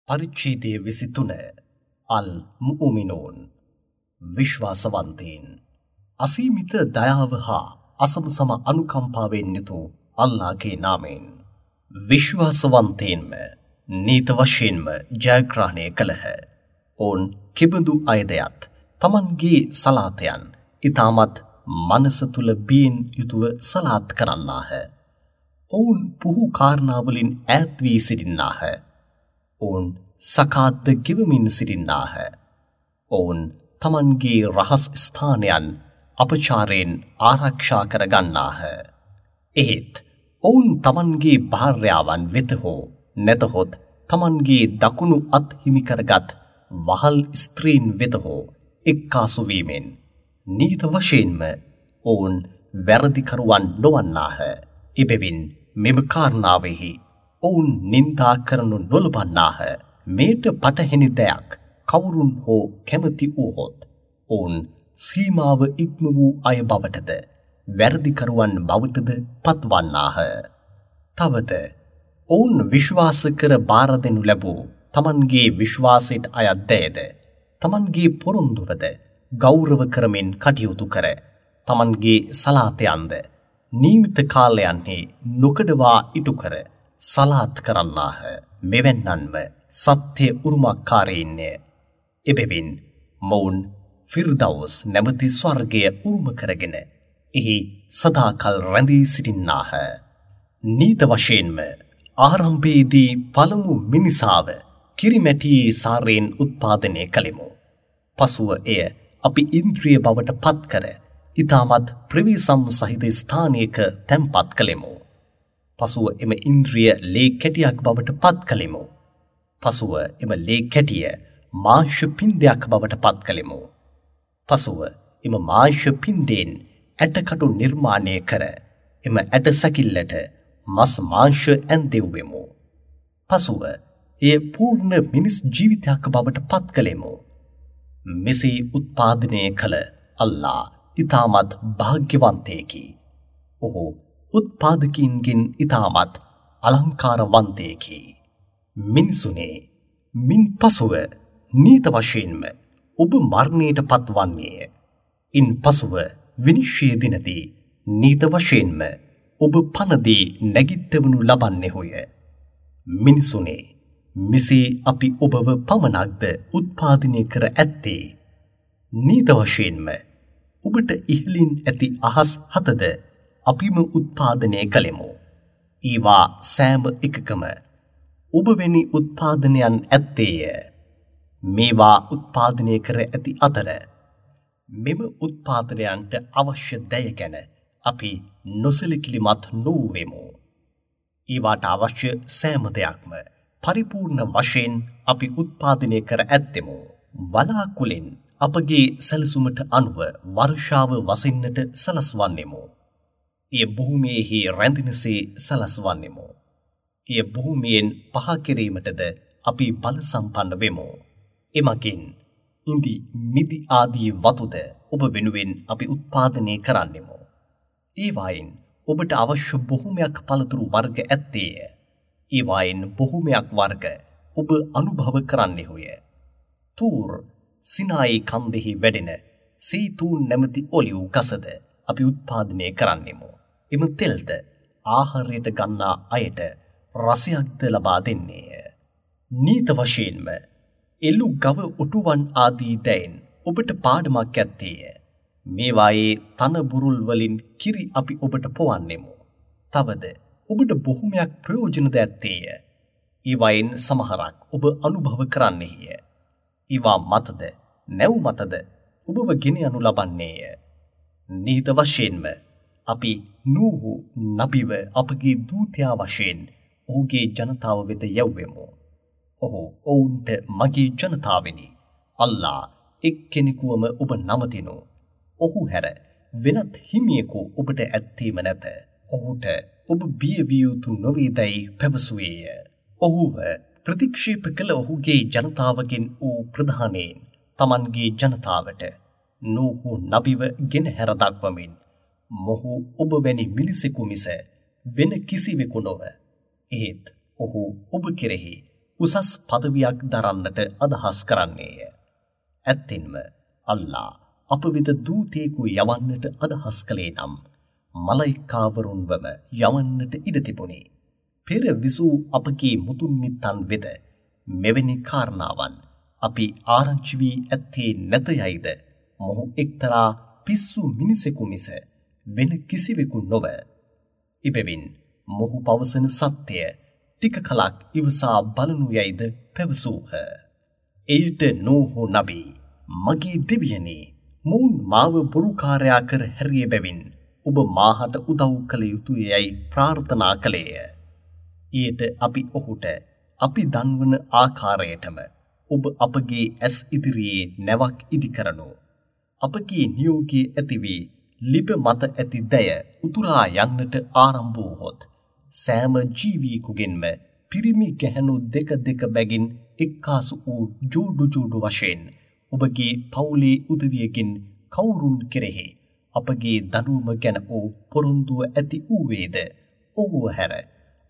පරිච්ඡේදය 23 අල් මුඅ්මිනූන් විශ්වාසවන්තයින් අසීමිත දයාව හා අසමසම අනුකම්පාවෙන් යුතු අල්ලාහගේ නාමයෙන් විශ්වාසවන්තයින්ම නීත වශයෙන්ම ජයග්‍රහණය කළහ. ඔවුන් කිබඳු අයදයත් තමන්ගේ සලාතයන් ඉතාමත් මනස තුල බියෙන් යුතුව සලාත් කරන්නාහ. ඔවුන් පුහු කාරණාවලින් ඈත් වී සිටින්නාහ. ඔවුන් සකාත්ද ගෙවමින් සිටින්නාහ. ඔවුන් තමන්ගේ රහස් ස්ථානයන් අපචාරයෙන් ආරක්ෂා කර ගන්නාහ. එහෙත් ඔවුන් තමන්ගේ භාර්යාවන් වෙත හෝ නැතහොත් තමන්ගේ දකුණු අත් හිමි කරගත් වහල් ස්ත්‍රීන් වෙත හෝ එක්කාසු වීමෙන් නීත වශයෙන්ම ඔවුන් වැරදිකරුවන් නොවන්නාහ. එබැවින් මෙම කාරණාවෙහි ඔවුන් නින්දා කරනු නොලබන්නාහ. මේට පටහැනි දෙයක් කවුරුන් හෝ කැමති වූහොත් ඔවුන් සීමාව ඉක්ම වූ අය බවටද වැරදිකරුවන් බවටද පත්වන්නාහ. තවද ඔවුන් විශ්වාස කර බාර දෙනු ලැබූ තමන්ගේ විශ්වාසයට අයත් දෑද තමන්ගේ පොරොන්දුවද ගෞරව කරමින් කටයුතු කර තමන්ගේ සලාතයන්ද නියමිත කාලයන්හි නොකඩවා ඉටු කර සලාත් කරන්නාහ. මෙවැන්නන්ම සත්‍ය උරුමකාරීන්ය. එබැවින් මොවුන් ෆිර්දවුස් නැමැති ස්වර්ගය උරුම කරගෙන එහි සදාකල් රැඳී සිටින්නාහ. නීත වශයෙන්ම ආරම්භයේදී පළමු මිනිසාව කිරිමැටියේ සාරයෙන් උත්පාදනය කළෙමු. පසුව එය අපි ඉන්ද්‍රිය බවට පත් කර ඉතාමත් ප්‍රවේසම් සහිත ස්ථානයක තැන්පත් කළෙමු. පසුව එම ඉන්ද්‍රිය ලේ කැටියක් බවට පත් කළෙමු. පසුව එම ලේ කැටිය මාංශ පිණ්ඩයක් බවට පත් කළෙමු. පසුව එම මාංශ පිණ්ඩයෙන් ඇටකටු නිර්මාණය කර එම ඇට සැකිල්ලට මස් මාංශ ඇන්දෙව්වෙමු. පසුව එය පූර්ණ මිනිස් ජීවිතයක් බවට පත් කළෙමු. මෙසේ උත්පාදනය කළ අල්ලා ඉතාමත් භාග්‍යවන්තයෙකි. ඔහු උත්පාදකීන්ගෙන් ඉතාමත් අලංකාරවන්තයෙකි. මිනිසුනේ, මින් පසුව නීත වශයෙන්ම ඔබ මරණයට පත්වන්නේය. ඉන් පසුව විනිශ්චය දිනදී නීත වශයෙන්ම ඔබ පනදී නැගිට්ටවනු ලබන්නේහුය. මිනිසුනේ, මෙසේ අපි ඔබව පමණක්ද උත්පාදනය කර ඇත්තේ? නීත වශයෙන්ම ඔබට ඉහළින් ඇති අහස් හතද අපිම උත්පාදනය කළෙමු. ඒවා සෑම එකකම ඔබ වැනි උත්පාදනයන් ඇත්තේය. මේවා උත්පාදනය කර ඇති අතර මෙම උත්පාදනයන්ට අවශ්‍ය දෑ ගැන අපි නොසැලකිලිමත් නොවූවෙමු. ඒවාට අවශ්‍ය සෑම දෙයක්ම පරිපූර්ණ වශයෙන් අපි උත්පාදනය කර ඇත්තෙමු. වලාකුළෙන් අපගේ සැලසුමට අනුව වර්ෂාව වසින්නට සලස්වන්නෙමු. එය භූමියේහි රැඳෙනසේ සලස්වන්නෙමු. එය භූමියෙන් පහ කිරීමටද අපි බල සම්පන්න වෙමු. එමගින් ඉඳි මිදි ආදී වතුද ඔබ වෙනුවෙන් අපි උත්පාදනය කරන්නෙමු. ඒවායින් ඔබට අවශ්‍ය බොහොමයක් පළතුරු වර්ග ඇත්තේය. ඒවායින් බොහොමයක් වර්ග ඔබ අනුභව කරන්නෙහුය. තූර් සිනායි කන්දෙහි වැඩෙන සීතූන් නැමැති ඔලිව් ගසද අපි උත්පාදනය කරන්නෙමු. එම තෙල්ද ආහාරයට ගන්නා අයට රසයක්ද ලබා දෙන්නේය. නීත වශයෙන්ම එළු ගව ඔටුවන් ආදී දෑයින් ඔබට පාඩමක් ඇත්තේය. මේවායේ තන බුරුල් වලින් කිරි අපි ඔබට පොවන්නෙමු. තවද ඔබට බොහොමයක් ප්‍රයෝජනද ඇත්තේය. ඒවායින් සමහරක් ඔබ අනුභව කරන්නෙහිය. ඒවා මතද නැව් මතද ඔබව ගෙන යනු ලබන්නේය. නිහිත වශයෙන්ම අපි නූහු නබිව අපගේ දූතයා වශයෙන් ඔහුගේ ජනතාව වෙත යැව්වෙමු. ඔහු ඔවුන්ට මගේ ජනතාවෙනි, අල්ලා එක්කෙනෙකුවම ඔබ නමතිනු. ඔහු හැර වෙනත් හිමියෙකු ඔබට ඇත්තේම නැත. ඔහුට ඔබ බිය විය යුතු නොවේදැයි පැවසුවේය. ඔහුව ප්‍රතික්ෂේප කළ ඔහුගේ ජනතාවගෙන් වූ ප්‍රධානයෙන් තමන්ගේ ජනතාවට නූහු නබිව ගෙනහැර දක්වමින් මොහු ඔබ වැනි මිනිසෙකු මිස වෙන කිසිවෙකු නොව. එහෙත් ඔහු ඔබ කෙරෙහි උසස් පදවියක් දරන්නට අදහස් කරන්නේය. ඇත්තෙන්ම අල්ලා අප වෙත දූතයෙකු යවන්නට අදහස් කළේ නම් මලයිකාවරුන්වම යවන්නට ඉඩ තිබුණි. පෙර විසූ අපගේ මුතුන් මිත්තන් වෙත මෙවැනි කාරණාවන් අපි ආරංචි වී ඇත්තේ නැත යයිද මොහු එක්තරා පිස්සු මිනිසෙකු මිස වෙන කිසිවෙකු නොව. එබැවින් මොහු පවසන සත්‍යය ටික කලක් ඉවසා බලනු යයිද පැවසූහ. එයට නූහ් නබී මගේ දෙවියනි, මොවුන් මාව බොරුකාරයා කර හැරිය බැවින් ඔබ මාහට උදව් කළ යුතුය යයි ප්‍රාර්ථනා කළේය. එයට අපි ඔහුට අපි දන්වන ආකාරයටම ඔබ අපගේ ඇස් ඉදිරියේ නැවක් ඉදි කරනු. අපගේ නියෝගය ඇති වී ලිප මත ඇති දැය උතුරා යන්නට ආරම්භ වූහොත් සෑම ජීවියෙකුගෙන්ම පිරිමි ගැහැණු දෙක දෙක බැගින් එක්කාසු වූ ජෝඩු ජෝඩු වශයෙන් ඔබගේ පවුලේ උදවියකින් කවුරුන් කෙරෙහි අපගේ දඬුවම ගැන වූ පොරොන්දුව ඇති වූවේද ඔහුව හැර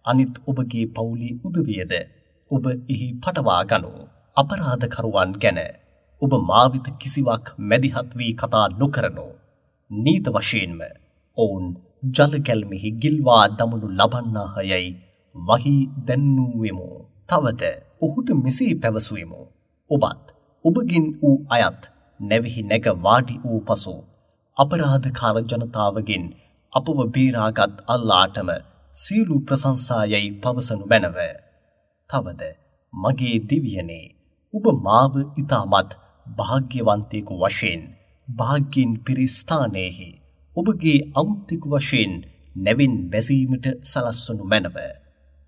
අනිත් ඔබගේ පවුලේ උදවියද ඔබ එහි පටවා ගනු. අපරාධකරුවන් ගැන ඔබ මා වෙත කිසිවක් මැදිහත් වී කතා නොකරනු. නීත වශයෙන්ම ඔවුන් ජල ගැල්මෙහි ගිල්වා දමනු ලබන්නාහ යයි වහී දැන්වූවෙමු. තවද ඔහුට මෙසේ පැවසුවෙමු. ඔබත් ඔබගෙන් වූ අයත් නැවෙහි නැග වාඩි වූ පසු අපරාධකාර ජනතාවගෙන් අපව බේරාගත් අල්ලාටම සියලු ප්‍රශංසා යයි පවසනු මැනව. තවද මගේ දෙවියනේ, ඔබ මාව ඉතාමත් භාග්‍යවන්තයෙකු වශයෙන් භාග්‍යයෙන් පිරි ස්ථානයෙහි ඔබගේ අමුත්තෙකු වශයෙන් නැවින් බැසීමට සලස්වනු මැනව.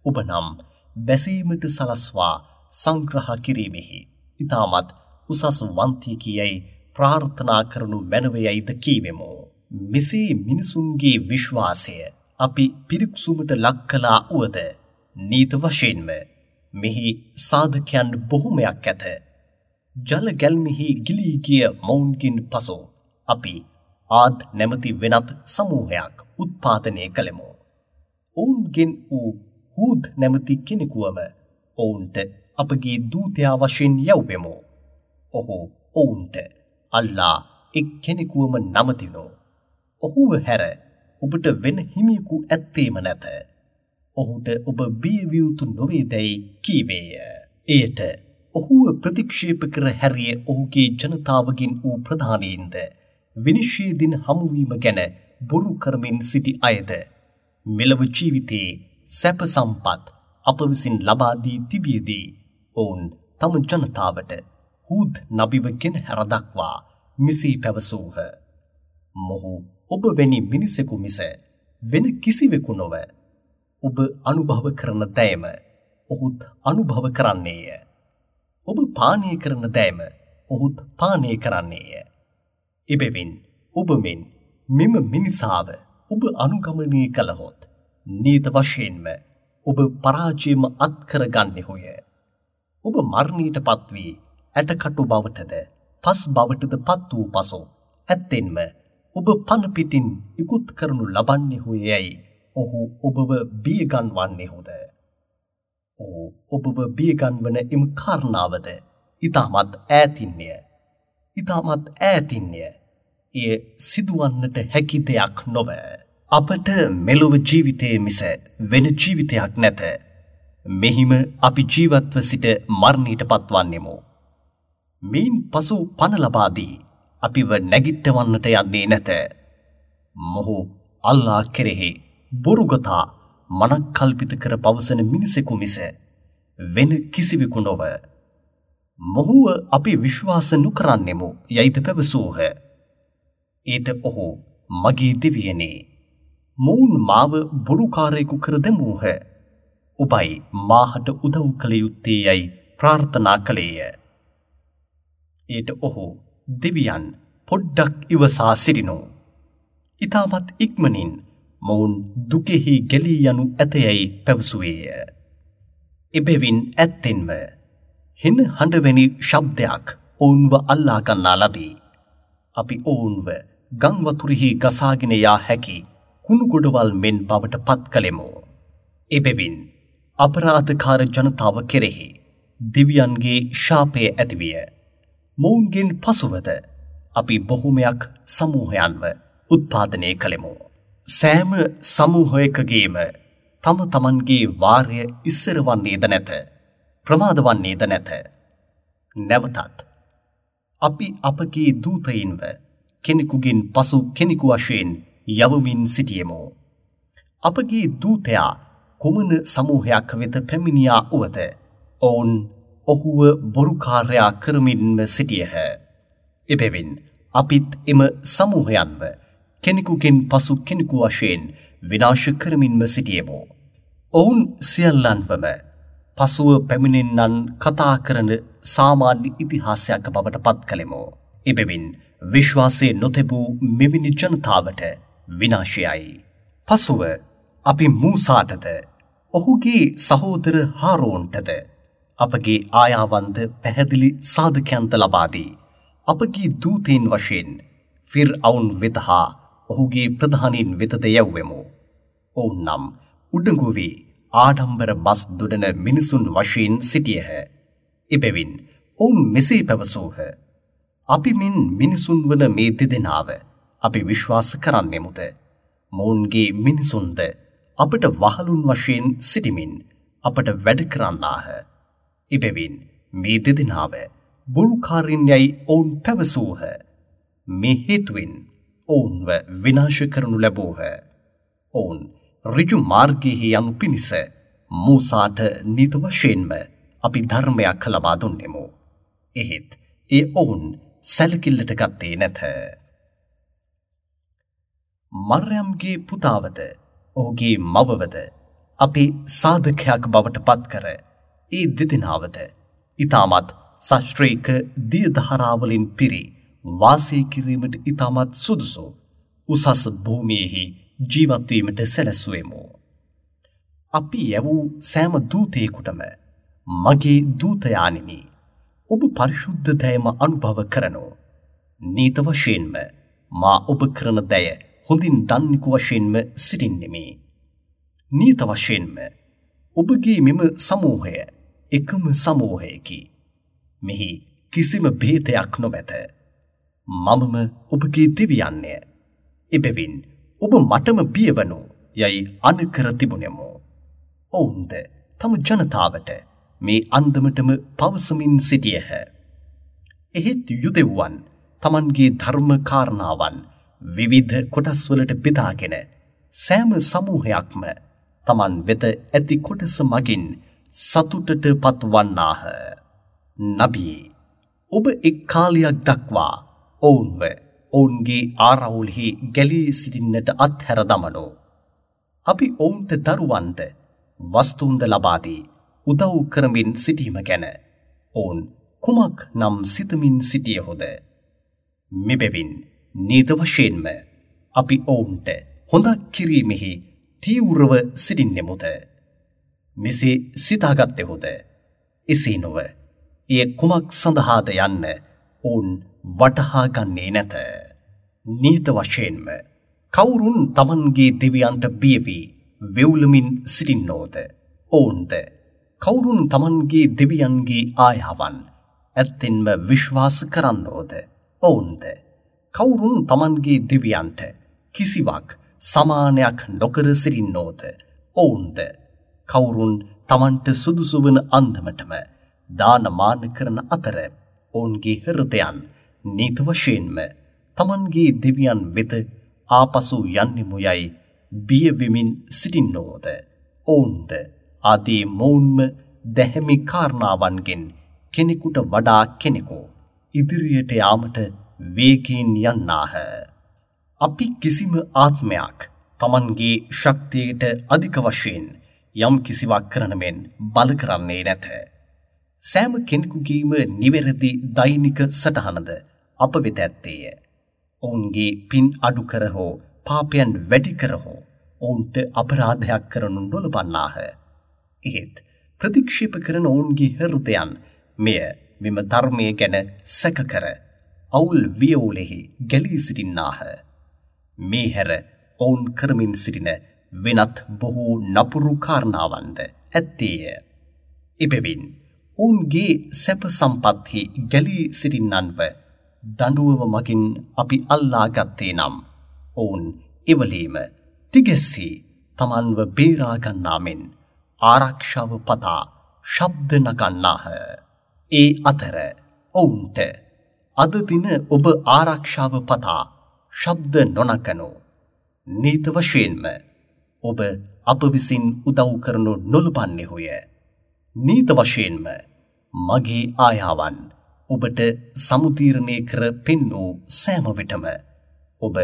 ඔබ නම් බැසීමට සලස්වා සංග්‍රහ කිරීමෙහි ඉතාමත් උසස් වන්තියෙකි යයි ප්‍රාර්ථනා කරනු මැනව යයිද කීවෙමු. මෙසේ මිනිසුන්ගේ විශ්වාසය අපි පිරික්සුමට ලක් කළා වුවද නීත වශයෙන්ම මෙහි සාධකයන් බොහොමයක් ඇත. ජල ගැල්මෙහි ගිලී ගිය මොවුන්ගෙන් පසු අපි ආද් නැමැති වෙනත් සමූහයක් උත්පාදනය කළෙමු. ඔවුන්ගෙන් වූ හූද් නැමැති කෙනෙකුවම ඔවුන්ට අපගේ දූතයා වශයෙන් යැව්වෙමු. ඔහු ඔවුන්ට අල්ලා එක් කෙනෙකුවම නමතිනු. ඔහුව හැර ඔබට වෙන හිමියෙකු ඇත්තේම නැත. ඔහුට ඔබ බිය විය යුතු නොවේදැයි කීවේය. එයට ඔහුව ප්‍රතික්ෂේප කර හැරිය ඔහුගේ ජනතාවගෙන් වූ ප්‍රධානීන්ද විනිශ්චය දින හමුවීම ගැන බොරු කරමින් සිටි අයද මෙලොව ජීවිතයේ සැප සම්පත් අප විසින් ලබා දී තිබියදී ඔවුන් තම ජනතාවට හූද් නබිව ගෙන හැර දක්වා මෙසේ පැවසූහ. මොහු ඔබ වැනි මිනිසෙකු මිස වෙන කිසිවෙකු නොව. ඔබ අනුභව කරන දෑම ඔහුත් අනුභව කරන්නේය. ඔබ පානය කරන දෑම ඔහුත් පානය කරන්නේය. එබැවින් ඔබ මෙන් මෙම මිනිසාව ඔබ අනුගමනය කළහොත් නීත වශයෙන්ම ඔබ පරාජයම අත්කර ගන්නෙහුය. ඔබ මරණයට පත්වී ඇටකටු බවටද පස් බවටද පත් වූ පසු ඇත්තෙන්ම ඔබ පණ පිටින් ඉකුත් කරනු ලබන්නෙහුය යැයි ඔහු ඔබව බියගන්වන්නෙහුද? ඔහු ඔබව බියගන්වන එම කාරණාවද ඉතාමත් ඈතින්ය. ඉතාමත් ඈතින්ය. එය සිදුවන්නට හැකි දෙයක් නොව. අපට මෙලොව ජීවිතයේ මිස වෙන ජීවිතයක් නැත. මෙහිම අපි ජීවත්ව සිට මරණයට පත්වන්නෙමු. මෙයින් පසු පණ ලබා දී අපිව නැගිට්ටවන්නට යන්නේ නැත. මොහු අල්ලා කෙරෙහි බොරුගතා මනක්කල්පිත කර පවසන මිනිසෙකු මිස වෙන කිසිවෙකු නොව. මොහුව අපි විශ්වාස නොකරන්නෙමු යයිද පැවසූහ. ඊට ඔහු මගේ දෙවියනේ, මොවුන් මාව බොරුකාරයෙකු කර දැමූහ. ඔබයි මාහට උදව් කළ යුත්තේ යයි ප්‍රාර්ථනා කළේය. ඊට ඔහු දෙවියන් පොඩ්ඩක් ඉවසා සිටිනු. ඉතාමත් ඉක්මනින් මොවුන් දුකෙහි ගැලී යනු ඇතයයි පැවසුවේය. එබැවින් ඇත්තෙන්ම හෙන හඬවැනි ශබ්දයක් ඔවුන්ව අල්ලා ගන්නා ලදී. අපි ඔවුන්ව ගම් වතුරෙහි ගසාගෙන යා හැකි කුණු ගොඩවල් මෙන් බවට පත් කළෙමු. එබැවින් අපරාධකාර ජනතාව කෙරෙහි දෙවියන්ගේ ශාපය ඇතිවිය. මොවුන්ගෙන් පසුවද අපි බොහොමයක් සමූහයන්ව උත්පාදනය කළෙමු. සෑම සමූහයකගේම තම තමන්ගේ වාරය ඉස්සර වන්නේද නැත, ප්‍රමාද වන්නේද නැත. නැවතත් අපි අපගේ දූතයින්ව කෙනෙකුගෙන් පසු කෙනෙකු වශයෙන් යවමින් සිටියෙමු. අපගේ දූතයා කුමන සමූහයක් වෙත පැමිණියා වුවද ඔවුන් ඔහුව බොරුකාරයා කරමින්ම සිටියහ. එබැවින් අපිත් එම සමූහයන්ව කෙනෙකුගෙන් පසු කෙනෙකු වශයෙන් විනාශ කරමින්ම සිටියෙමු. ඔවුන් සියල්ලන්වම පසුව පැමිණෙන්නන් කතා කරන සාමාන්‍ය ඉතිහාසයක් බවට පත් කළෙමු. එබැවින් විශ්වාසය නොතැබූ මෙවැනි ජනතාවට විනාශයයි. පසුව අපි මූසාටද ඔහුගේ සහෝදර හාරෝන්ටද අපගේ ආයාවන්ද පැහැදිලි සාධකයන්ද ලබා දී අපගේ දූතයින් වශයෙන් ෆිර්අවුන් වෙත හා ඔහුගේ ප්‍රධානීන් වෙතද යැව්වෙමු. ඔවුන් නම් උඩඟු වී ආඩම්බර බස් දුඩන මිනිසුන් වශයෙන් සිටියහ. එබැවින් ඔවුන් මෙසේ පැවසූහ. අපි මෙන් මිනිසුන් වන මේ දෙදෙනාව අපි විශ්වාස කරන්නෙමුද? මොවුන්ගේ මිනිසුන්ද අපට වහලුන් වශයෙන් සිටිමින් අපට වැඩ කරන්නාහ. එබැවින් මේ දෙදෙනාව බොරුකාරින් යැයි ඔවුන් පැවසූහ. මේ හේතුවෙන් ඔවුන්ව විනාශ කරනු ලැබූහ. ඔවුන් ඍජු මාර්ගයෙහි යනු පිණිස මූසාට නිත වශයෙන්ම අපි ධර්මයක් ලබා දුන්නෙමු. එහෙත් ඒ ඔවුන් සැලකිල්ලට ගත්තේ නැත. මර්යම්ගේ පුතාවද ඔහුගේ මවවද අපි සාධකයක් බවට පත්කර ඒ දෙදෙනාවද ඉතාමත් ශාස්ත්‍රීය දිය ධාරාවලින් පිරි වාසය කිරීමට ඉතාමත් සුදුසු උසස් භූමියෙහි ජීවත් වීමට සැලැස්සුවෙමු. අපි යැවූ සෑම දූතයෙකුටම මගේ දූතයාණෙනි, ඔබ පරිශුද්ධ දයම අනුභව කරනු. නීත වශයෙන්ම මා ඔබ කරන දය හොඳින් දන්නෙකු වශයෙන්ම සිටින්නෙමි. නීත වශයෙන්ම ඔබගේ මෙම සමූහය එකම සමූහයකි. මෙහි කිසිම භේදයක් නොමැත. මමම ඔබගේ දෙවියන්ය. එබැවින් ඔබ මටම බියවනු යයි අනකර තිබුණෙමු. ඔවුන්ද තම ජනතාවට මේ අන්දමටම පවසමින් සිටියහ. එහෙත් යුදෙව්වන් තමන්ගේ ධර්ම කාරණාවන් විවිධ කොටස්වලට බෙදාගෙන සෑම සමූහයක්ම තමන් වෙත ඇති කොටස මගින් සතුටට පත්වන්නාහ. නබී, ඔබ එක් කාලයක් දක්වා ඔවුන්ව ඔවුන්ගේ ආරවුල්හි ගැලී සිටින්නට අත්හැර දමනු. අපි ඔවුන්ට දරුවන්ද වස්තුන්ද ලබා දී උදව් කරමින් සිටීම ගැන ඔවුන් කුමක් නම් සිතමින් සිටියහොද? මෙබැවින් නීත වශයෙන්ම අපි ඔවුන්ට හොඳක් කිරීමෙහි තීව්‍රව සිටින්නෙමුද? මෙසේ සිතාගත්තෙහුද? එසේ නොව එය කුමක් සඳහාද යන්න ඔවුන් වටහා ගන්නේ නැත. නීත වශයෙන්ම කවුරුන් තමන්ගේ දෙවියන්ට බිය වී වෙවුලමින් සිටින්නෝද? ඔවුන්ද කවුරුන් තමන්ගේ දෙවියන්ගේ ආයාවන් ඇත්තෙන්ම විශ්වාස කරන්නෝද? ඔවුන්ද කවුරුන් තමන්ගේ දෙවියන්ට කිසිවක් සමානයක් නොකර සිටින්නෝද? ඔවුන්ද කවුරුන් තමන්ට සුදුසු වන අන්දමටම දානමාන කරන අතර ඔවුන්ගේ හෘදයන් නීත වශයෙන්ම තමන්ගේ දෙවියන් වෙත ආපසු යන්නෙමු යයි බිය වෙමින් සිටින්නෝද? ඔවුන්ද ආදී මොවුන්ම දැහැමි කාරණාවන්ගෙන් කෙනෙකුට වඩා කෙනෙකු ඉදිරියට යාමට වේගයෙන් යන්නාහ. අපි කිසිම ආත්මයක් තමන්ගේ ශක්තියට අධික වශයෙන් යම් කිසිවක් කරන මෙන් බල කරන්නේ නැත. සෑම කෙනෙකුගේම නිවැරදි දෛනික සටහනද අප වෙත ඇත්තේය. ඔවුන්ගේ පින් අඩු කර හෝ පාපයන් වැඩි කර හෝ ඔවුන්ට අපරාධයක් කරනු නොලබන්නාහ. එහෙත් ප්‍රතික්ෂේප කරන ඔවුන්ගේ හෘදයන් මෙය මෙම ධර්මය ගැන සැක කර අවුල් වියවුලෙහි ගැලී සිටින්නාහ. මේ හැර ඔවුන් කරමින් සිටින වෙනත් බොහෝ නපුරු කාරණාවන්ද ඇත්තේය. එබැවින් ඔවුන්ගේ සැප සම්පත්හි ගැලී සිටින්නන්ව දඬුවම මගින් අපි අල්ලා ගත්තේ නම් ඔවුන් එවලීම තිගැස්සී තමන්ව බේරා ගන්නා මෙන් ආරක්ෂාව පතා ශබ්ද නගන්නාහ. ඒ අතර ඔවුන්ට අද දින ඔබ ආරක්ෂාව පතා ශබ්ද නොනගනු. නීත වශයෙන්ම ඔබ අප විසින් උදව් කරනු නොලබන්නේහුය. නීත වශයෙන්ම මගේ ආයාවන් ඔබට සමුදීරණය කර පෙන්වූ සෑම විටම ඔබ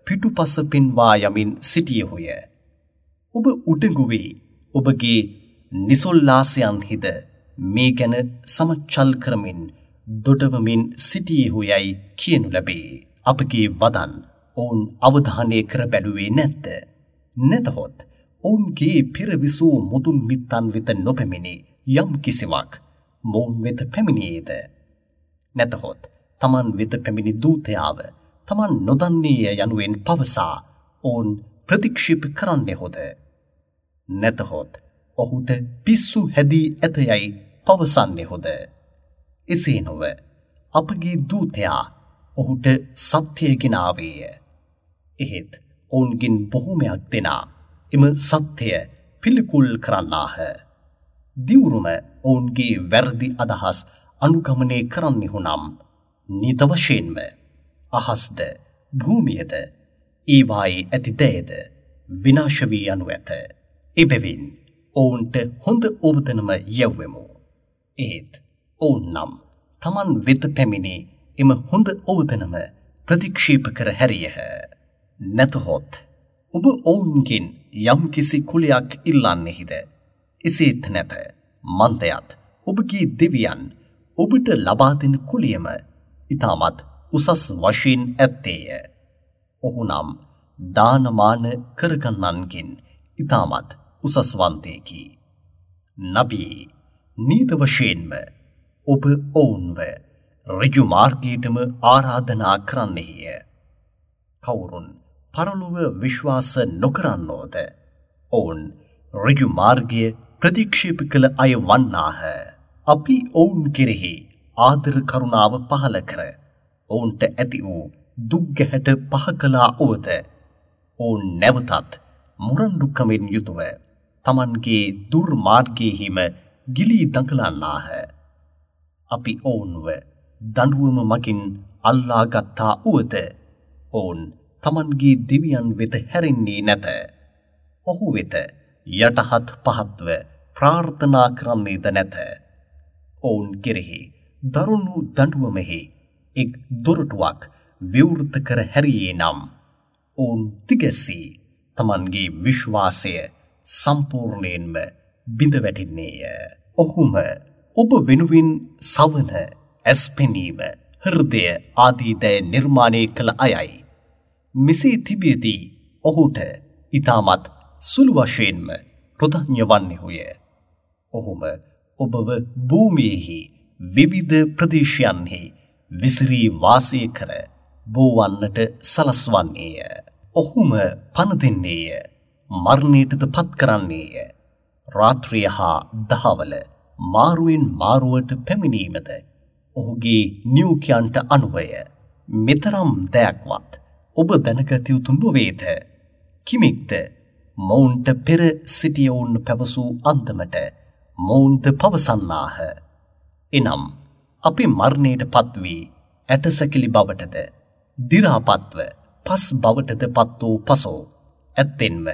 පිටුපස පෙන්වා යමින් සිටියහුය. ඔබ උඩඟු වී ඔබගේ නිසොල්ලාසයන්හිද මේ ගැන සමච්චල් කරමින් දොඩවමින් සිටියහුයයි කියනු ලැබේ. අපගේ වදන් ඔවුන් අවධානය කර බැලුවේ නැද්ද? නැතහොත් ඔවුන්ගේ පෙර විසූ මුදුන් මිත්තන් වෙත නොපැමිණි යම් කිසිවක් මොවුන් වෙත පැමිණියේද? නැතහොත් තමන් වෙත පැමිණි දූතයාව තමන් නොදන්නේය යනුවෙන් පවසා ඔවුන් ප්‍රතික්ෂේප කරන්නෙහුද? නැතහොත් ඔහුට පිස්සු හැදී ඇතයයි පවසන්නෙහුද? එසේ නොව අපගේ දූතයා ඔහුට සත්‍යය ගෙන ආවේය. එහෙත් ඔවුන්ගෙන් බොහෝමයක් දෙනා එම සත්‍යය පිළිකුල් කරන්නාහ. දිවුරුම ඔවුන්ගේ වැරදි අදහස් අනුගමනය කරන්නෙහු නම් නිත වශයෙන්ම අහස්ද භූමියද ඒවායේ ඇති දෑද විනාශ වී යනු ඇත. එබැවින් ඔවුන්ට හොඳ ඔවදනම යැව්වෙමු. ඒත් ඔවුන් නම් තමන් වෙත පැමිණි එම හොඳ ඔවදනම ප්‍රතික්ෂේප කර හැරියහ. නැතහොත් ඔබ ඔවුන්ගෙන් යම්කිසි කුලයක් ඉල්ලන්නෙහිද? එසේත් නැත. මන්දයත් ඔබගේ දෙවියන් ඔබට ලබා දෙන කුලියම ඉතාමත් උසස් වශයෙන් ඇත්තේය. ඔහු නම් දානමාන කරගන්නන්ගෙන් ඉතාමත් උසස්වන්තයෙකි. නබී, නීත වශයෙන්ම ඔබ ඔවුන්ව ඍජු මාර්ගයටම ආරාධනා කරන්නෙහිය. කවුරුන් පරලොව විශ්වාස නොකරන්නෝද ඔවුන් ඍජු මාර්ගය ප්‍රතික්ෂේප කළ අය වන්නාහ. අපි ඔවුන් කෙරෙහි ආදර කරුණාව පහළ කර ඔවුන්ට ඇති වූ දුක් ගැහැට පහ කළා වුවද ඔවුන් නැවතත් මුරණ්ඩුකමින් යුතුව තමන්ගේ දුර්මාර්ගයෙහිම ගිලී දඟලන්නාහ. අපි ඔවුන්ව දඬුවම මගින් අල්ලා ගත්තා වුවද ඔවුන් තමන්ගේ දෙවියන් වෙත හැරෙන්නේ නැත. ඔහු වෙත යටහත් පහත්ව ප්‍රාර්ථනා කරන්නේද නැත. ඔවුන් කෙරෙහි දරුණු දඬුවමෙහි එක් දොරටුවක් විවෘත කර හැරියේ නම් ඔවුන් තිගැස්සී තමන්ගේ විශ්වාසය සම්පූර්ණයෙන්ම බිඳ වැටෙන්නේය. ඔහුම ඔබ වෙනුවෙන් සවන, ඇස් පෙනීම, හෘදය ආදී දෑ නිර්මාණය කළ අයයි. මෙසේ තිබියදී ඔහුට ඉතාමත් සුළු වශයෙන්ම කෘතඥ වන්නෙහුය. ඔහුම ඔබව භූමියෙහි විවිධ ප්‍රදේශයන්හි විසිරී වාසය කර බෝවන්නට සලස්වන්නේය. ඔහුම පණ දෙන්නේය, මරණයටද පත් කරන්නේය. රාත්‍රිය හා දහවල මාරුවෙන් මාරුවට පැමිණීමද ඔහුගේ නියෝගයන්ට අනුවය. මෙතරම් දෑක්වත් ඔබ දැනගත යුතු නොවේද? කිමෙක්ද මොවුන්ට පෙර සිටියවුන් පැවසූ අන්දමට මොවුන්ද පවසන්නාහ? එනම් අපි මරණයට පත්වී ඇටසැකිලි බවටද දි รา පත්ව පස් බවටද පත් වූ පසු ඇත්තෙන්ම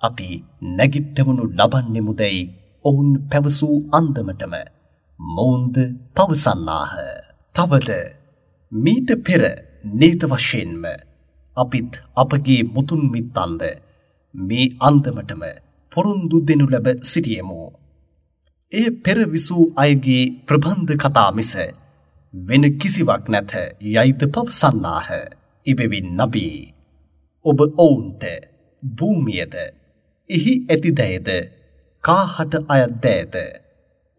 අපි නැගිට්ටවනු ලබන්නෙමුදැයි ඔවුන් පැවසූ අන්දමටම මොවුන්ද පවසන්නාහ. තවද මීට පෙර නීත වශයෙන්ම අපිත් අපගේ මුතුන් මිත්තන්ද මේ අන්දමටම පොරොන්දු දෙනු ලැබ සිටියෙමු. එය පෙර විසූ අයගේ ප්‍රබන්ධ කතා මිස වෙන කිසිවක් නැත යයිද පවසන්නාහ. එබැවින් නබී, ඔබ ඔවුන්ට භූමියද එහි ඇති දෑද කාහට අයත් දෑද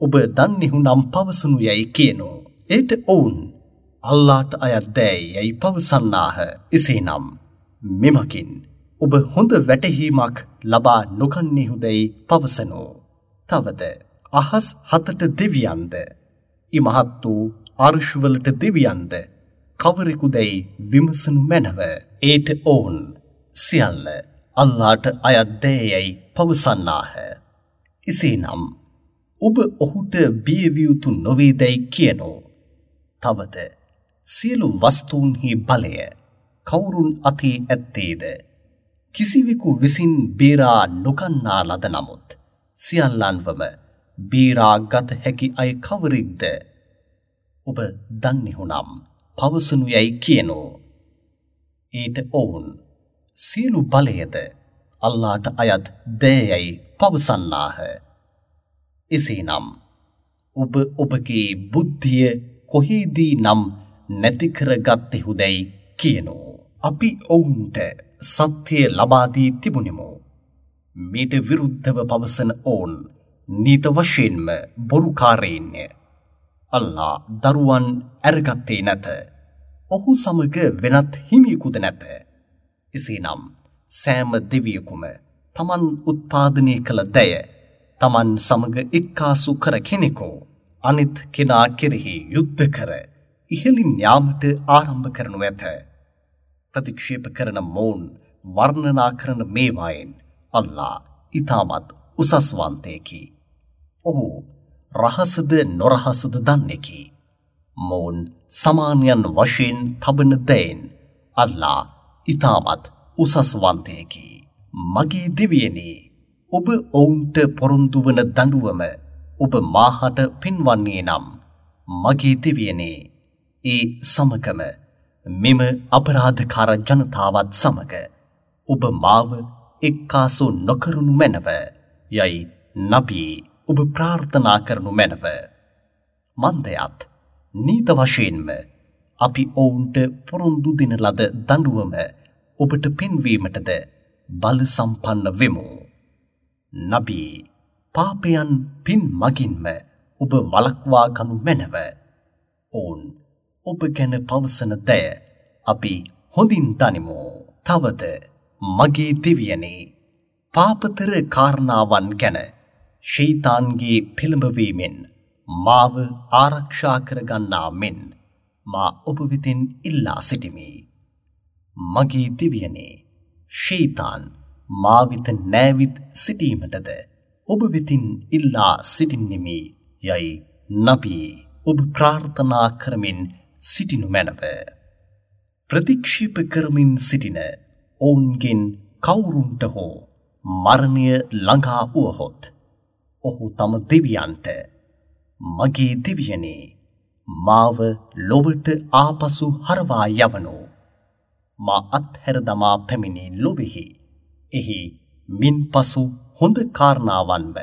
ඔබ දන්නෙහු නම් පවසනු යැයි කියනු. එයට ඔවුන් අල්ලාට අයත් දෑ යැයි පවසන්නාහ. එසේනම් මෙමකින් ඔබ හොඳ වැටහීමක් ලබා නොගන්නෙහුදැයි පවසනු. තවද අහස් හතට දෙවියන්ද ඉමහත් වූ අර්ශවලට දෙවියන්ද කවරෙකුදැයි විමසනු මැනව. ඒට ඔවුන් සියල්ල අල්ලාට අයත් දෑයැයි පවසන්නාහ. එසේනම් ඔබ ඔහුට බියවිය යුතු නොවේදැයි කියනෝ. තවද සියලු වස්තූන්හි බලය කවුරුන් අතේ ඇත්තේද? කිසිවෙකු විසින් බේරා නොගන්නා ලද නමුත් සියල්ලන්වම බේරා ගත හැකි අය කවරෙක්ද? ඔබ දන්නෙහු නම් පවසනු යැයි කියනෝ. ඊට ඔවුන් සියලු බලයද අල්ලාට අයත් දෑයැයි පවසන්නාහ. එසේනම් ඔබ ඔබගේ බුද්ධිය කොහේදී නම් නැති කරගත්තෙහුදැයි කියනෝ. අපි ඔවුන්ට සත්‍යය ලබා දී තිබුණෙමු. මීට විරුද්ධව පවසන ඔවුන් නීත වශයෙන්ම බොරුකාරයින්ය. අල්ලා දරුවන් ඇරගත්තේ නැත. ඔහු සමග වෙනත් හිමියෙකුද නැත. එසේනම් සෑම දෙවියෙකුම තමන් උත්පාදනය කළ දෑය තමන් සමග එක්කාසු කර කෙනෙකු අනිත් කෙනා කෙරෙහි යුද්ධ කර ඉහළින් යාමට ආරම්භ කරනු ඇත. ප්‍රතික්ෂේප කරන මොවුන් වර්ණනා කරන මේවායින් අල්ලා ඉතාමත් උසස්වන්තයෙකි. ඔහු රහසද නොරහසද දන්නෙකි. මොවුන් සමානයන් වශයෙන් තබන දෑයින් අල්ලා ඉතාමත් උසස්වන්තයෙකි. මගේ දෙවියනි, ඔබ ඔවුන්ට පොරොන්දු වන දඬුවම ඔබ මාහට පෙන්වන්නේ නම් මගේ දෙවියනි, ඒ සමගම මෙම අපරාධකාර ජනතාවත් සමග ඔබ මාව එක්කාසු නොකරනු මැනව යයි නබී ඔබ ප්‍රාර්ථනා කරනු මැනව. මන්දයත් නීත වශයෙන්ම අපි ඔවුන්ට පොරොන්දු දෙන ලද දඬුවම ඔබට පෙන්වීමටද බල සම්පන්න වෙමු. නබී, පාපයන් පින් මගින්ම ඔබ වළක්වා ගනු මැනව. ඔවුන් ඔබ ගැන පවසන දෑ අපි හොඳින් දනිමු. තවද මගේ දෙවියනි, පාපතර කාරණාවන් ගැන ෂයිතාන්ගේ පෙළඹවීමෙන් මාව ආරක්ෂා කරගන්නා මෙන් මා ඔබ වෙතින් ඉල්ලා සිටිමි. මගේ දෙවියනි, ෂයිතාන් මා වෙත නෑවිත් සිටීමටද ඔබ වෙතින් ඉල්ලා සිටින්නෙමි යයි නබී ඔබ ප්‍රාර්ථනා කරමින් සිටිනු මැනව. ප්‍රතික්ෂේප කරමින් සිටින ඔවුන්ගෙන් කවුරුන්ට හෝ මරණය ළඟා වුවහොත් ඔහු තම දෙවියන්ට මගේ දෙවියනි, මාව ලොවට ආපසු හරවා යවනු. මා අත්හැර දමා පැමිණි ලොවෙහි එහි මින්පසු හොඳ කාරණාවන්ව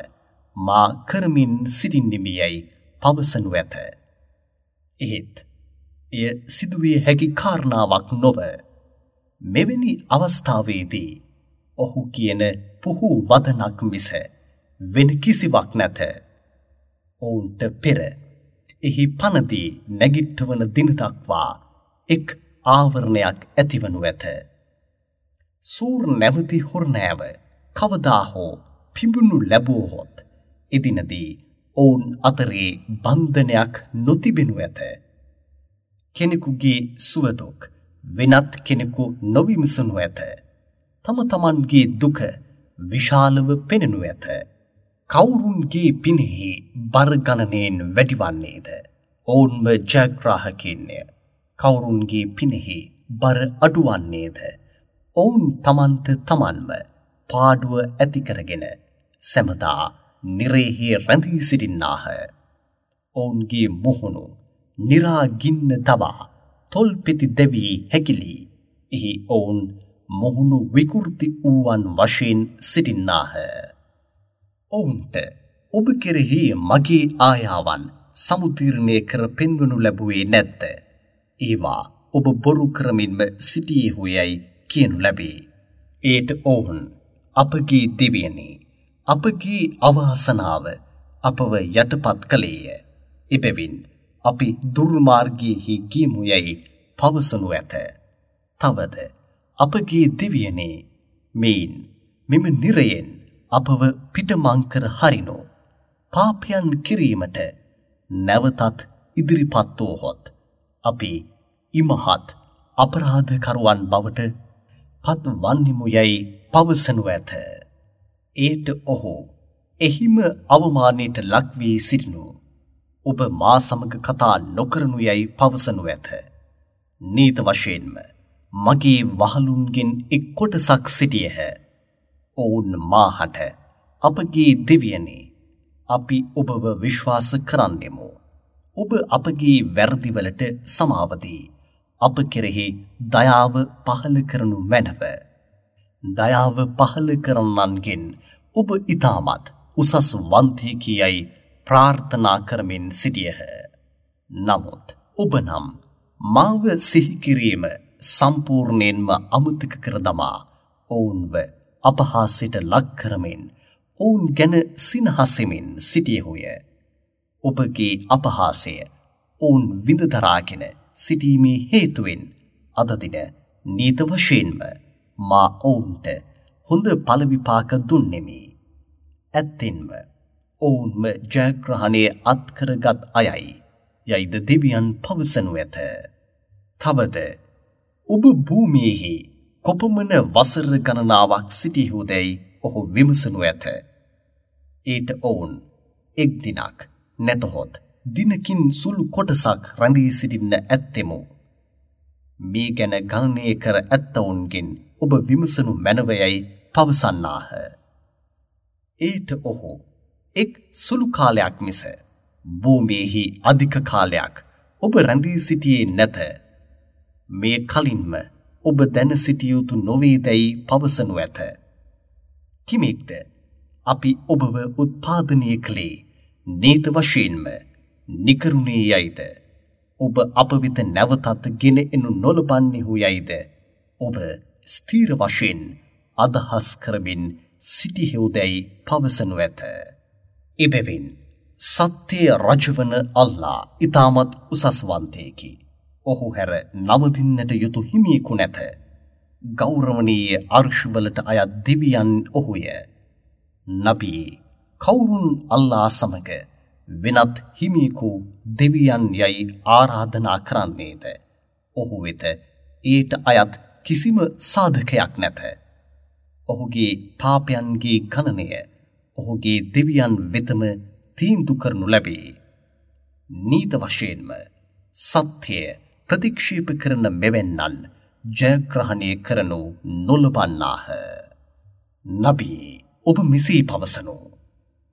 මා කරමින් සිටින්නෙමි යැයි පවසනු ඇත. එහෙත් එය සිදුවිය හැකි කාරණාවක් නොව. මෙවැනි අවස්ථාවේදී ඔහු කියන පුහු වදනක් මිස වෙන කිසිවක් නැත. ඔවුන්ට පෙර එහි පනදී නැගිට්ටවන දින දක්වා එක් ආවරණයක් ඇතිවනු ඇත. සූර් නැමැති හොරනෑව කවදා හෝ පිඹුණු ලැබුවහොත් එදිනදී ඔවුන් අතරේ බන්ධනයක් නොතිබෙනු ඇත. කෙනෙකුගේ සුවදුක් වෙනත් කෙනෙකු නොවිමසනු ඇත. තම තමන්ගේ දුක විශාලව පෙනෙනු ඇත. කවුරුන්ගේ පිනෙහි බර ගණනයෙන් වැඩිවන්නේද? ඔවුන්ම ජයග්‍රාහකයින්ය. කවුරුන්ගේ පිනෙහි බර අඩුවන්නේද? ඔවුන් තමන්ට තමන්ම පාඩුව ඇති කරගෙන සැමදා නිරේහි රැඳී සිටින්නාහ. ඔවුන්ගේ මුහුණු නිරා ගින්න දවා තොල් පෙති දැවී හැකිලී එහි ඔවුන් මුහුණු විකෘති වූවන් වශයෙන් සිටින්නාහ. ඔවුන්ට ඔබ කෙරෙහි මගේ ආයාවන් සමුදීර්ණය කර පෙන්වනු ලැබුවේ නැද්ද? ඒවා ඔබ බොරු කරමින්ම සිටියේහු යැයි කියනු ලැබේ. ඒට ඔවුන් අපගේ දෙවියනි, අපගේ අවාසනාව අපව යටපත් කළේය. එබැවින් අපි දුර්මාර්ගයෙහි ගියමු යැයි පවසනු ඇත. තවද අපගේ දෙවියනි, මෙයින් මෙම නිරයෙන් අපව පිටමං කර හරිනු. පාපයන් කිරීමට නැවතත් ඉදිරිපත් වූහොත් අපි ඉමහත් අපරාධකරුවන් බවට පත් වන්නෙමු යැයි පවසනු ඇත. ඒට ඔහු එහිම අවමානයට ලක් වී සිටිනු ඔබ මා සමග කතා නොකරනු යැයි පවසනු ඇත. නීත වශයෙන්ම මගේ වහලුන්ගෙන් එක් කොටසක් සිටියහ. ඔවුන් මාහට අපගේ දෙවියනි, අපි ඔබව විශ්වාස කරන්නෙමු. ඔබ අපගේ වැරදිවලට සමාව දී අප කෙරෙහි දයාව පහළ කරනු මැනව. දයාව පහළ කරන්නන්ගෙන් ඔබ ඉතාමත් උසස් වන්තියෙකි යයි ප්‍රාර්ථනා කරමින් සිටියහ. නමුත් ඔබ නම් මාව සිහි කිරීම සම්පූර්ණයෙන්ම අමතක කර දමා ඔවුන්ව අපහාසයට ලක් කරමින් ඔවුන් ගැන සිනහසෙමින් සිටියහුය. ඔබගේ අපහාසය ඔවුන් විඳ දරාගෙන සිටීමේ හේතුවෙන් අද දින නීත වශයෙන්ම මා ඔවුන්ට හොඳ ඵල විපාක දුන්නෙමි. ඇත්තෙන්ම ඔවුන්ම ජයග්‍රහණය අත්කරගත් අයයි යයිද දෙවියන් පවසනු ඇත. තවද ඔබ භූමියෙහි කොපමණ වසර ගණනාවක් සිටියහුදැයි ඔහු විමසනු ඇත. ඊට ඔවුන් එක් දිනක් නැතහොත් දිනකින් සුළු කොටසක් රැඳී සිටින්න ඇත්තෙමු. මේ ගැන ගණනය කර ඇත්තවුන්ගෙන් ඔබ විමසනු මැනවයයි පවසන්නාහ. ඒට ඔහු එක් සුළු කාලයක් මිස භූමියෙහි අධික කාලයක් ඔබ රැඳී සිටියේ නැත. මේ කලින්ම ඔබ දැන සිටිය යුතු නොවේදැයි පවසනු ඇත. කිමෙක්ද අපි ඔබව උත්පාදනය කළේ නීත වශයෙන්ම නිකරුණේ යයිද, ඔබ අප වෙත නැවතත් ගෙන එනු නොලබන්නෙහු යයිද ඔබ ස්ථීර වශයෙන් අදහස් කරමින් සිටිහෙව්දැයි පවසනු ඇත. එබැවින් සත්‍යය රජවන අල්ලා ඉතාමත් උසස්වන්තයෙකි. ඔහු හැර නවතින්නට යුතු හිමියෙකු නැත. ගෞරවනීය අර්ශවලට අයත් දෙවියන් ඔහුය. නබී, කවුරුන් අල්ලා සමග වෙනත් හිමියෙකු දෙවියන් යයි ආරාධනා කරන්නේද? ඔහු වෙත ඊට අයත් කිසිම සාධකයක් නැත. ඔහුගේ පාපයන්ගේ ගණනය ඔහුගේ දෙවියන් වෙතම තීන්දු කරනු ලැබේ. නීත වශයෙන්ම සත්‍යය ප්‍රතික්ෂේප කරන මෙවැන්නන් ජයග්‍රහණය කරනු නොලබන්නාහ. නබී, ඔබ මෙසේ පවසනු.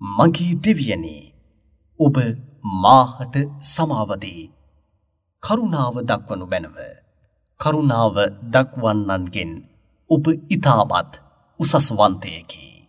මගේ දෙවියනි, ඔබ මාහට සමාව දී කරුණාව දක්වනු මැනව. කරුණාව දක්වන්නන්ගෙන් ඔබ ඉතාමත් උසස්වන්තයෙකි.